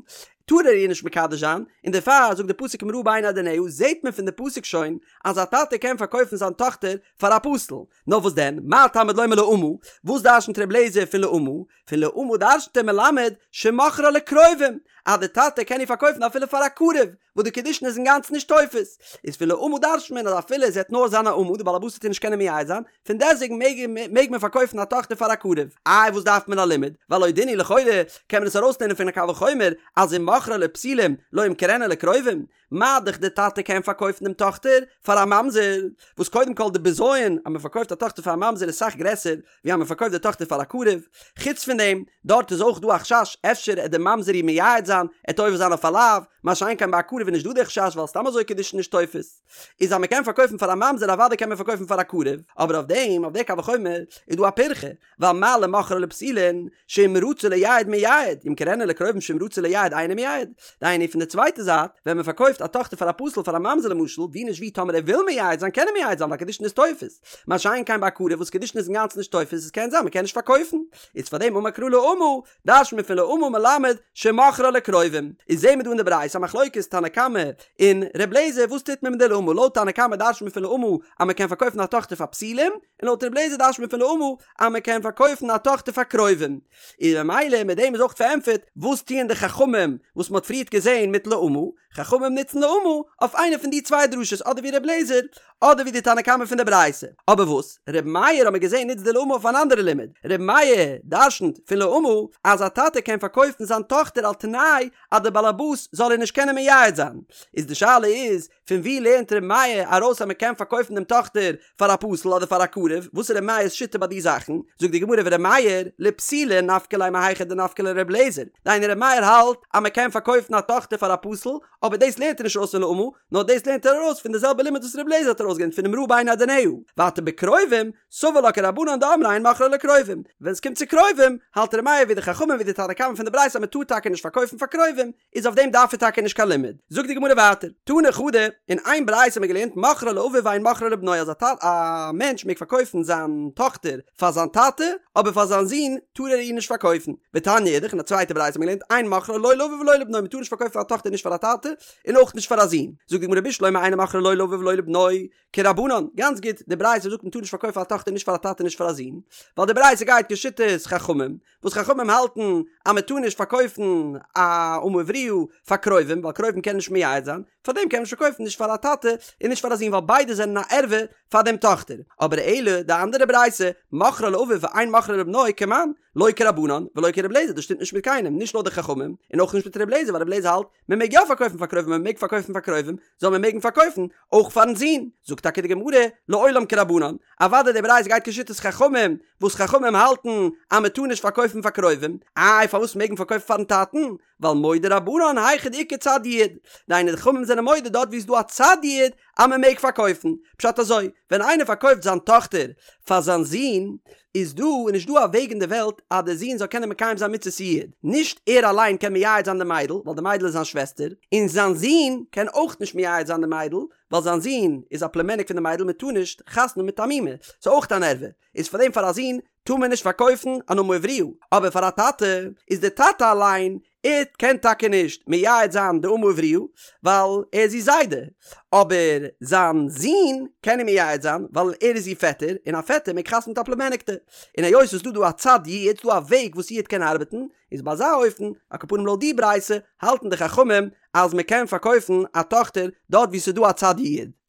טאר ער איר נישט מקדש זיין, און דערפאר זאגט די פסוק אם רעה בעיני אדוניה, זעט מען פון די פסוק שוין אז א טאטע קען פארקויפן זיין טאכטער פאר א פסול, נאר וואס דען, מה תלמוד לומר לאמה, וואס דרשנ'ט ר' לעזער פון לאמה? פון לאמה דרשנ'ט ער מלמד שמוכרה לקרובים, אז די טאטע קען איר פארקויפן אפילו פאר א קרוב, וואס די קידושין איז אינגאנצן נישט תופס, איז פון לאמה דרשנ'ט מען אז אפילו זי העט נאר זיין א אמה, די בעל הבית וועט איר נישט קענען מייעד זיין, פון דעסטוועגן מעג מעג מען פארקויפן א טאכטער פאר א קרוב. איי וואס דארף מען א לימוד? והלא דין הוא לכאורה קען מען עס ארויסלערנען פון א קל וחומר אז אם. מוכרה לפסולים לא ימכרנה לקרובים, מה דאך די טאטע קען פארקויפן דעם טאכטער פאר א ממזר, וואס קודם כל די בזיון אז מען פארקויפט א טאכטער פאר א ממזר איז סאך גרעסער ווי אז מען פארקויפט די טאכטער פאר א קרוב, חוץ פון דעם, דארט איז אויך דא א חשש אפשר עט די ממזר איר מייעד זיין, עט עובר זיין אויף א לאו, מה שאין כן ביי א קרוב איז נישט דא די חשש ווייל סתם אזוי קידושין נישט תופס. איז אז מען קען פארקויפן פאר א ממזר אוודאי קען מען פארקויפן פאר א קרוב, אבער אויף דעם, אויף די קל וחומר, איז דא א פירכא, ווייל מה למוכרה לפסולין שאם רצה לייעד מייעד, ימכרנה לקרובים שאם רצה לייעד אינו מייעד. דהיינו פון די צווייטע זייט, ווען מען פארקויפט א טאכטער פאר א פסול פאר א ממזר למשל, ווי נישט ווי טאמער ער וויל מייעד זיין קען ער מייעד זיין ווייל קידושין איז תופס. מה שאין כן ביי א קרוב וואס קידושין איז אינגאנצן נישט תופס עס קען זיין מען קען נישט פארקויפן. איז פאר דעם אמר קרא לאמה, דרש'נט מען פון לאמה מלמד שמוכרה לקרובים. איז זעהן מיר דא אין די ברייתא א מחלוקת תנא קמא און ר' לעזער וואס טוט מען מיט די לאמה לויט תנא קמא דרש'נט מען פון לאמה אז מען קען פארקויפן א טאכטער פאר פסולים, און לויט ר' לעזער דרש'נט מען פון לאמה אז מען קען פארקויפן א טאכטער פאר קרובים. און ממילא מיט דעם איז אויך פארענטפערט וואס טוען די חכמים וואס מען האט פריערט געזען מיט לאמה, חכמים נוצן לאמה אויף איינע פון די צוויי דרשות אדער ווי ר' לעזער אדער ווי די תנא קמא פון די ברייתא. אבער וואס ר' מאיר האט מען געזען נוצט די לאמה אויף אן אנדערע לימוד, ר' מאיר דרש'נט פון לאמה אז א טאטע קען פארקויפן זיין טאכטער על תנאי אז די באלעבאס זאל איר נישט קענען מייעד זיין, איז די שאלה איז פון ווי לערנט ר' מאיר ארויס אז מען קען פארקויפן דעם טאכטער פאר א פסול אדער פאר א קרוב? וואס איז ר' מאיר'ס שיטה ביי די זאכן? זאגט די גמרא ור' מאיר לפסולין נפקא ליה מהיכא דנפקא ליה ר' אליעזר, דהיינו ר' מאיר האלט אז מען קען פארקויפן א טאכטער פאר א פסול, אבער דאס לערנט ער נישט ארויס פון לאמה, נאר דאס לערנט ער ארויס פון די זעלבע לימוד וואס ר' אליעזר האט ארויסגעלערנט פון אם רעה בעיני אדוניה, ווייטער בקרובים, סבר לה כרבנן דאמרי אין מוכרה לקרובים, ווען עס קומט צו קרובים, האלט ר' מאיר ווי די חכמים ווי די תנא קמא פון די ברייתא אז מען טאר טאקע נישט פארקויפן פאר קרובים, איז אויף דעם דארף ער טאקע נישט קיין לימוד. זאגט די גמרא ווייטער, תני חדא, אין איין ברייתא האט מען געלערנט מוכרה לאביו ואין מוכרה לבנו אז א מענטש מעג פארקויפן זיין טאכטער פאר זיין טאטע, אבער פאר זיין זון טאר ער איר נישט פארקויפן. ותניא אידך, אין א צווייטע ברייתא האט מען געלערנט אין מוכרה לא לאביו ולא לבנו מען טאר נישט פארקויפן א טאכטער נישט פאר א טאטע און אויך נישט פאר א זון. זאגט די גמרא בשלמא אין מוכרה לא לאביו ולא לבנו, כרבנן, גאנץ גוט, די ברייתא זאגט מען טאר נישט פארקויפן א טאכטער נישט פאר א טאטע נישט פאר א זון, ווייל די ברייתא גייט כשיטת חכמים, וואס חכמים האלטן אז מען טאר נישט פארקויפן א אמה עבריה פאר קרובים ווייל קרובים קענען נישט מייעד זיין, פארדעם קען מען נישט פארקויפן נישט פאר א טאטע און נישט פאר א זון ווייל ביידע זענען א ערווה פאר דעם טאכטער, אבער אלא די אנדערע ברייתא, מוכרה לאביו ואין מוכרה לבנו כמאן, לא כרבנן ולא כר' אליעזר דאס שטימט נישט מיט קיינעם נישט לויט די חכמים און אויך נישט מיט ר' אליעזר ווייל ר' אליעזר האלט מען מעג יא פארקויפן פאר קרובים מען מעג פארקויפן פאר קרובים זאל מען מעגן פארקויפן אויך פארן זון, זאגט טאקע די גמרא לעולם כרבנן, אוודאי די ברייתא גייט כשיטת חכמים, וואס חכמים האלטן אז מען טאר נישט פארקויפן פאר קרובים, איי פארוואס מעג מען פארקויפן פארן טאטן, ווייל מודו רבנן היכא דאיכא צד יעוד, דהיינו די חכמים זענען מודה דארט ווי איז דא א צד יעוד אז מען מעג פארקויפן, פשט אזוי, ווען איינער פארקויפט זיין טאכטער פאר זיין זון, איז דא איז נישט דא א וועג אין די וועלט אז די זון זאל קענען מקיים זיין מצות יעוד, נישט ער אליין קען מייעד זיין די מיידל ווייל די מיידל איז זיין שוועסטער, און זיין זון קען אויך נישט מייעד זיין די מיידל ווייל זיין זון איז א פלומעניק פון די מיידל מען טאר נישט חתונה מיט א מומע, ס'איז אויך אן ערווה, איז פאר דעם פאר א זון טאר מען נישט פארקויפן אן אמה עבריה, אבער פאר א טאטע איז די טאטע אליין ער קען טאקע נישט מייעד זיין די אמה עבריה ווייל ער איז איר זיידע, אבער זיין זון קען איר מייעד זיין ווייל ער איז איר פעטער, און א פעטער מעג חתונה מיט א פלומעניקטע. און היות ס'איז דא דא א צד יעוד, ס'דא א וועג וואס יעוד קען ארבעטן, איז ביי אזא אופן, על כל פנים לויט די ברייתא, האלטן די חכמים אז מ'קען פארקויפן א טאכטער דארט וואו ס'איז דא א צד יעוד.